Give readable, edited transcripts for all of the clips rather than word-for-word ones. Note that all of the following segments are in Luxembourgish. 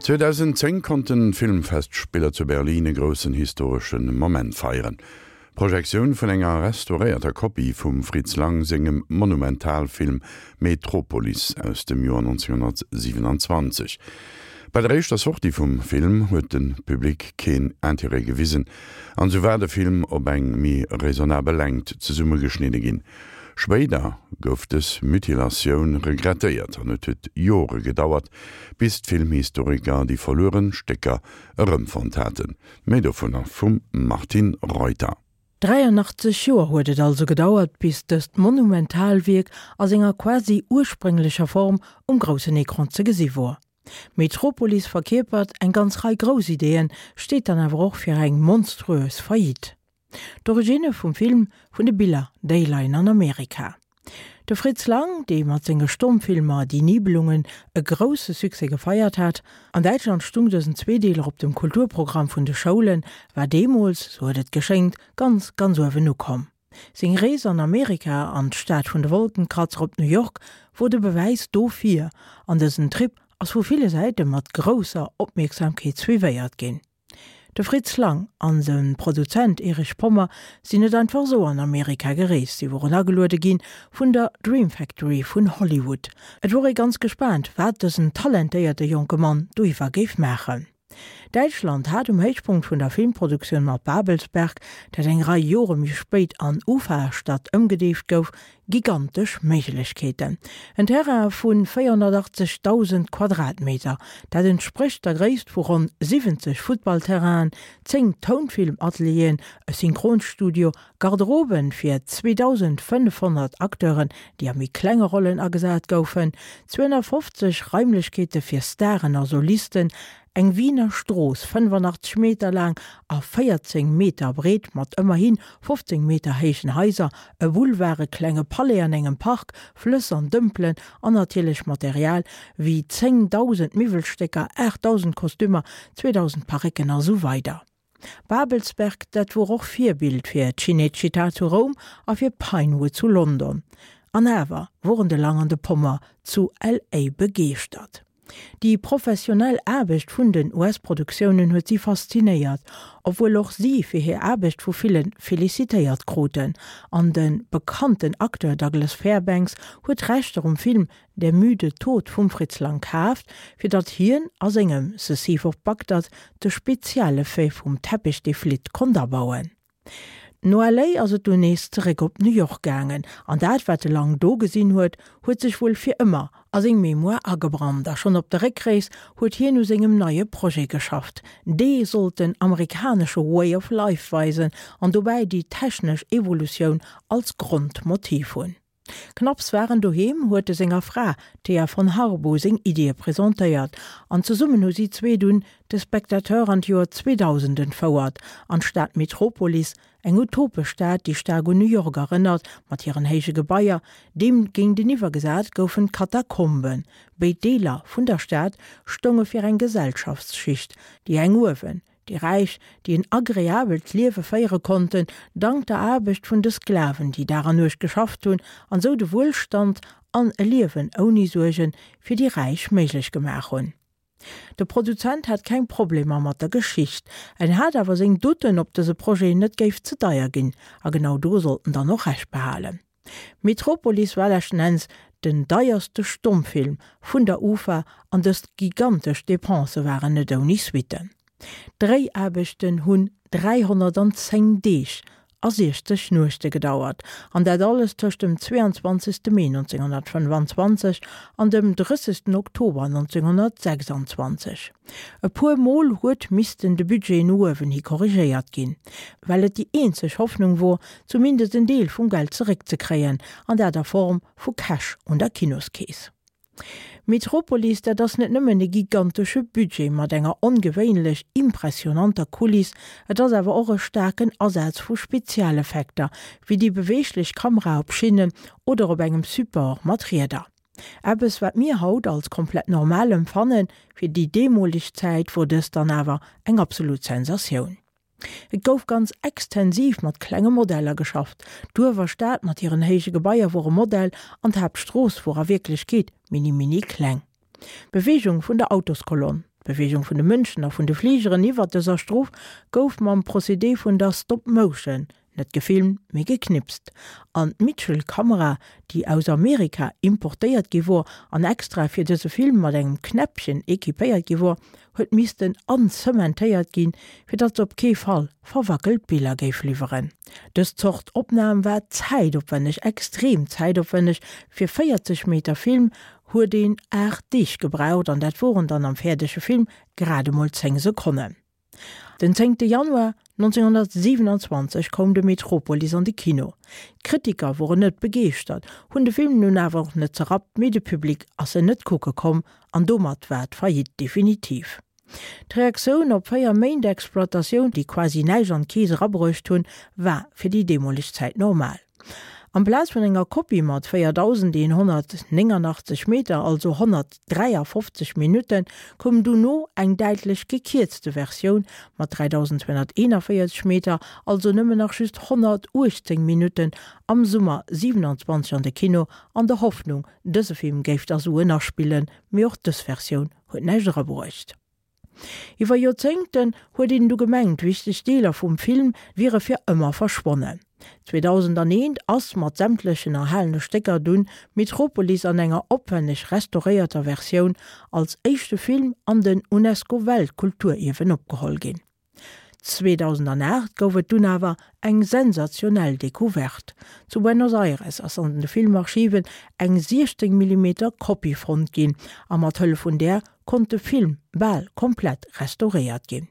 2010 konnten d'Filmfestspiller zu Berlin e groussen historesche Moment feieren, d'Projektioun vun enger restauréierter Kopie vum Fritz Lang sengem Monumentalfilm Metropolis aus dem Joer 1927. Bei der éischter Sortie vum Film huet de Public keen Interêt gewisen an sou war de Film op eng méi raisonnabel Längt zesummegeschnidde ginn. Spéider gouf dës Mutilatioun regrettéiert an et huet Jore gedauert, bis d'Filmhistoriker déi verlueren Stécker erëmfonnt haten. Méi dovunner vum Martine Reuter. 83 Joer huet et also gedauert, bis dëst Monumentalwierk a senger quasi ursprénglecher Form um groussen Ecran ze gesi wor. Metropolis verkierpert eng ganz Rei grouss Ideeën, steet dann awer och fir eng monstruös Faillite. D'Originne vum Film, vun de Biller, déi leien an Amerika. De Fritz Lang, dee mat senge Stommfilmer Die Nibelungen e grousse Succès gefeiert hat, an Däitschland stung dësen Zweedeeler op dem Kulturprogramm vun de Schoulen, war deemools, sou huet et geschéngt, ganz, ganz uewen ukomm. Seng Rees an Amerika, an d'Stad vun de Wolkenkratzer op New York, wor de Bewäis dofir, an dësen Trip ass vu ville Säite mat grousser Opmierksamkeet suivéiert ginn. De Fritz Lang an de Produzent Erich Pommer sinn net einfach esou an Amerika gereest, si woren ageluede ginn vun der Dream Factory vun Hollywood. Et wor ee ganz gespaant, wat dësen talentéierte jonke Mann doiwwer géif maachen. Däitschland hat um Héichpunkt vun der Filmproduktioun mat Babelsberg, dat eng Rei Jore méi spéit an Ufa-Stadt ëmgedeeft gouf, Gigantesch Méiglechkeeten. En Terrain vu 480.000 Quadratmeter, dat entsprécht der Gréisst vu ronn 70 Futtballterrainen, 10 Tounfilm-Atelieren, e Synchronstudio, Garderoben fir 2.500 Acteuren, déi a méi klenge Rollen agesat goufen, 250 Raimlechkeete fir Staren a Solisten, Eng Wiener Strooss, 85 Meter laang a 14 Meter breet, mat ëmmerhi 15 Meter héijen Haiser, e Boulevard, e klenge Palais an engem Park, Flëss an Dëmpelen an natierlech Material wéi 10.000 Miwwelstécker, 8.000 Kostümer, 2.000 Parécken a sou weider. Babelsberg, dat wor och Virbild fir Cinecittà zu Roum a fir Pinewood zu London. An awer woren de Lang an de Pommer zu LA begeeschtert. Déi professionell Aarbecht vun den US-Produktiounen huet si faszinéiert, obwuel och si fir hir Aarbecht vu ville felicitéiert kruten. An de bekannten Acteur Douglas Fairbanks huet d'Rechter um Film Der müde Tod vum Fritz Lang kaaft, fir datt hien a sengem The Thief of Bagdad de Spezialeffet vum Teppich dee flitt konnt abauen. No LA ass et dunn nees zeréck op New York gaangen, an dat wat de Lang do gesinn huet, huet sech wuel fir ëmmer a seng Mémoire agebrannt a schonn op der Réckrees huet hien u sengem neie Projet geschafft. Dee sollt den amerikanesche Way of Life weisen an dobäi déi technesch Evolutioun als Grondmotiv hunn. Knapps war en doheem, huet e senger Fra, Thea von Harbou, seng Iddie presentéiert an zesummen hu si zwee dunn de Spectateur an d'Joer 2000 entfouert, an d'Stad Metropolis, eng utopesch Stad, déi staark un New York erënnert, mat hiren héije Gebaier. Deem géinteniwwer gesat goufen d'Katakomben. Béid Deeler vun der Stad stounge fir eng Gesellschaftsschicht, déi eng uewen, Déi Räich, déi en agreabelt Liewe féiere konnten, dank der Aarbecht vun de Sklaven, déi Dag an Nuecht geschafft hunn an sou de Wuelstand an e Liewen ouni Suerge fir déi Räich méiglech gemaach hunn. De Produzent hat keng Problemer mat der Geschicht, en hat awer seng Doutten, ob dëse Projet net géif ze deier ginn, a genau do sollt en dann och Recht behalen. Metropolis war leschten Enns den deierste Stommfilm vun der Ufa an dëst gigantesch Depensë waren net ouni Suitten. D'Dréiaarbechten hunn 310 Deeg a 60 Nuechte gedauert, an dat alles tëscht dem 22. Mee 1925 an dem 30. Oktober 1926. E puer Mol huet missten de Budget no uewen hi korrigéiert ginn, well et déi eenzeg Hoffnung wor, zumindest en Deel vum Geld zeréckzekréien, an dat a Form vu Cash un der Kinoskeess. Metropolis, dat ass net nëmmen e gigantesche Budget mat enger ongewéinlech impressionanter Kuliss, et ass awer och e staarken Asaz vu Spezialeffekter, wéi déi beweeglech Kamera op Schinnen oder op engem Support mat Rieder. Eppes wat mir haut als komplett normal empfannen, fir déi deemoleg Zäit wor dëst dann awer eng absolut Sensatioun. Et gouf ganz extensiv mat klenge Modeller geschafft. D'Uewerstad mat hiren héije Gebaier wor e Modell an d'Haaptstrooss wor a Wierklechkeet mini mini kleng. D'Beweegung vun der Autoskolonn. D'Beweegung vun de Mënschen a vun de Fligeren iwwert dëser Strof gouf mam Procédé vun der Stop Motion, net gefilmt, mee geknipst. An d'Mitchell-Kamera, déi aus Amerika importéiert gi wor an extra fir dëse Film mat engem Knäppchen equipéiert gi wor, huet missten anzementéiert ginn, fir datt se op kee Fall verwackelt Biller géif liwweren. Dës Zort Opnam war zäitopwänneg, extrem zäitopwänneg, fir 40 Meter Film huet een 8 Deeg gebraucht an dat woren dann am fäerdege Film grad emol 10 Sekonnen. Den 10 Januar 1927 koum de Metropolis an de Kino. D'Kritiker woren net begeeschtert, hunn de Film nun awer och net zerrappt, mee de Public ass en net kucke komm an domat war d'Faillite definitiv. D'Reaktioun op 4 Méint Exploitatioun, déi quasi näischt an d'Keess erabruecht hunn, war fir déi deemoleg Zäit normal. Amplaz vun enger Kopie mat 4.189 Meter, also 153 Minutten, koum dono eng däitlech gekierzte Versioun mat 3.241 Meter, also nëmmen nach just 118 Minutten, am Summer 27 an de Kino, an der Hoffnung, dëse Film géif da Suen aspillen, mee och dës Versioun huet näischt erabruecht. Iwwer Joerzéngten huet een du gemengt, wichteg Deeler vum Film wiere fir ëmmer verschwonnen. 2001 ass mat sämtlechen erhalene Stécker dunn Metropolis an enger opwenneg restauréierter Versioun als éischte Film an den UNESCO-Weltkulturierwen opgeholl ginn. 2008 gouf et dunn awer eng sensationell Decouverte. Zu Buenos Aires ass an de Filmarchiven eng 16 Millimeter Kopie fonnt ginn a mat Hëllef vun där konnt de Film bal komplett restauréiert ginn.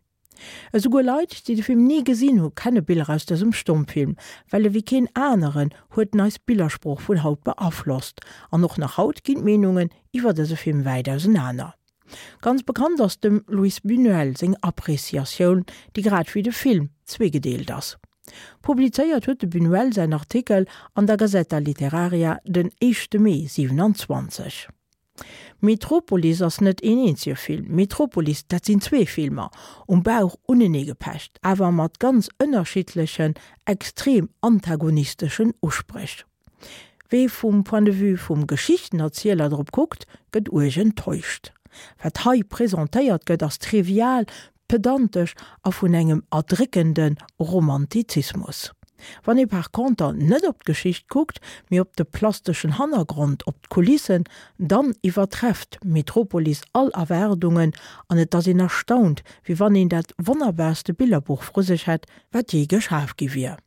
Esouguer Leit, déi de Film ni gesinn hu kenne Biller aus dësem Stommfilm, well ewéi keen aneren huet en eis Billersprooch vun haut beaflosst. An och nach haut ginn d'Meenungen iwwer dëse Film wäit ausenaner. Ganz bekannt ass dem Luis Buñuel seng Appreciatioun, déi grad wéi de Film zweegedeelt ass. Publizéiert huet de Buñuel säin Artikel an der Gazeta Literaria den éischte Mee 27. Metropolis ass net een eenzege Film. Metropolis, dat sinn zwee Filmer, um Bauch uneneegepecht, awer mat ganz ënnerschiddlechen, extrem antagonisteschen Uspréch. Wee vum Point de vue vum Geschichtenerzieler drop kuckt, gëtt uerg enttäuscht. Wat hei presentéiert gëtt, ass trivial, pedantesch a vun engem erdréckende Romantizismus. Wann ee par conter net op d'Geschicht kuckt, mee op de plasteschen Hannergrond, op d'Kulissen, dann iwwertrefft Metropolis all Erwaardungen an et ass een erstaunt, wéi wann een dat wonnerbaarste Billerbuch vru sech hätt, wat jee geschaf gi wier.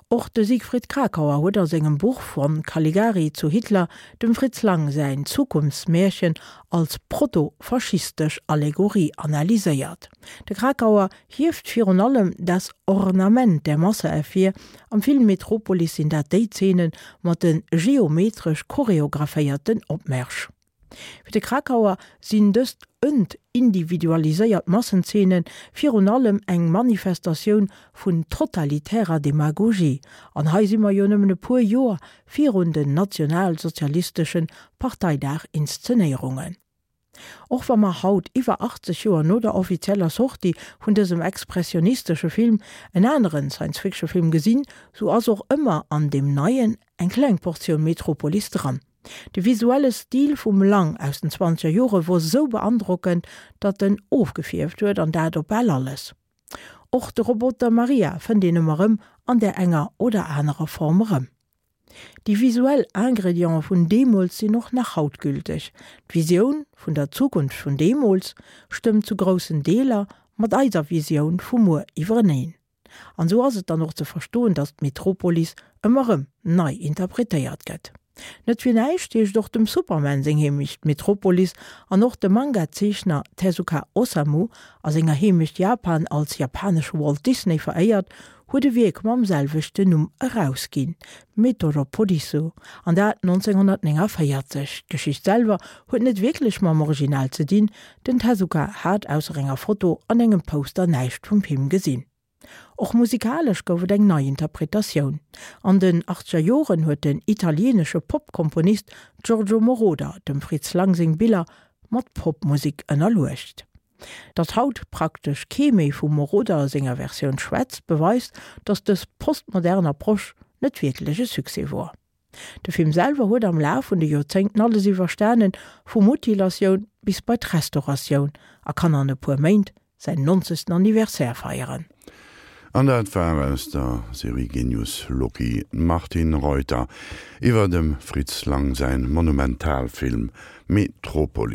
Och de Siegfried Kracauer huet a sengem Buch Von Caligari zu Hitler dem Fritz Lang säin Zukunftsmärchen als proto-faschistesch Allegorie analyséiert. De Kracauer hieft virun allem das Ornament der Masse ervir, am Film Metropolis sinn dat déi Zeene mat de geometresch choreographéierten Opmärsch. Fir de Kracauer sinn dëst entindividualiséiert Massenzeene virun allem eng Manifestatioun vun totalitärer Demagogie, an hei si mer jo nëmmen e puer Joer virun den nationalsozialistesche Parteidag-Inszenéierungen. Och wa mer haut, iwwer 80 Joer no der offizieller Sortie vun dësem expressionistesche Film, en aneren Science-Fiction-Film gesinn, sou ass och ëmmer an deem neien eng kleng Portioun Metropolis dran. De visuelle Stil vum Lang aus den zwanzeger Jore wor sou beandrockend, datt en ofgefierft huet, an dat op bal alles. Och de Roboter Maria fënnt een ëmmer rëm an där enger oder anerer Form erëm. Déi visuell Ingrediente vun deemools sinn och nach haut gülteg. D'Visioun vun der Zukunft vun deemools stëmmt zu groussen Deeler mat eiser Visioun vu muer iwwereneen. An esou ass et dann och ze verstoen, datt d'Metropolis ëmmer erëm nei interpretéiert gëtt. Net fir näischt heescht och dem Superman seng Heemecht Metropolis an och de Manga-Zeechner Tezuka Osamu, a senger Heemecht Japan als japanesche Walt Disney veréiert, huet e Wierk mam selwechten Numm erausginn, Metoropolisu, an dat 1949. D'Geschicht selwer huet net wierklech mam Original ze dinn, Den Tezuka hat ausser enger Foto an engem Poster näischt vum Film gesinn. Och musikalesch gouf et eng nei Interpretatioun. An den achtzeger Joren huet den italieenesche Pop-Komponist Giorgio Moroder dem Fritz Lang seng Biller mat Popmusek ënnerluecht. Datt haut praktesch kee méi vum Moroder senger Versioun schwätzt, beweist, datt dës postmodern Approche net wierklech e Succès wor. De Film selwer huet am Laf vun de Joerzéngten alles iwwerstanen, vu Mutilatioun. bis bei d'Restauratioun a kann an e puer Méint säin nonzegsten Anniversaire feieren. An dat war aus der Serie Genius Loci d'Martine Reuter iwwer dem Fritz Lang säin Monumentalfilm Metropolis.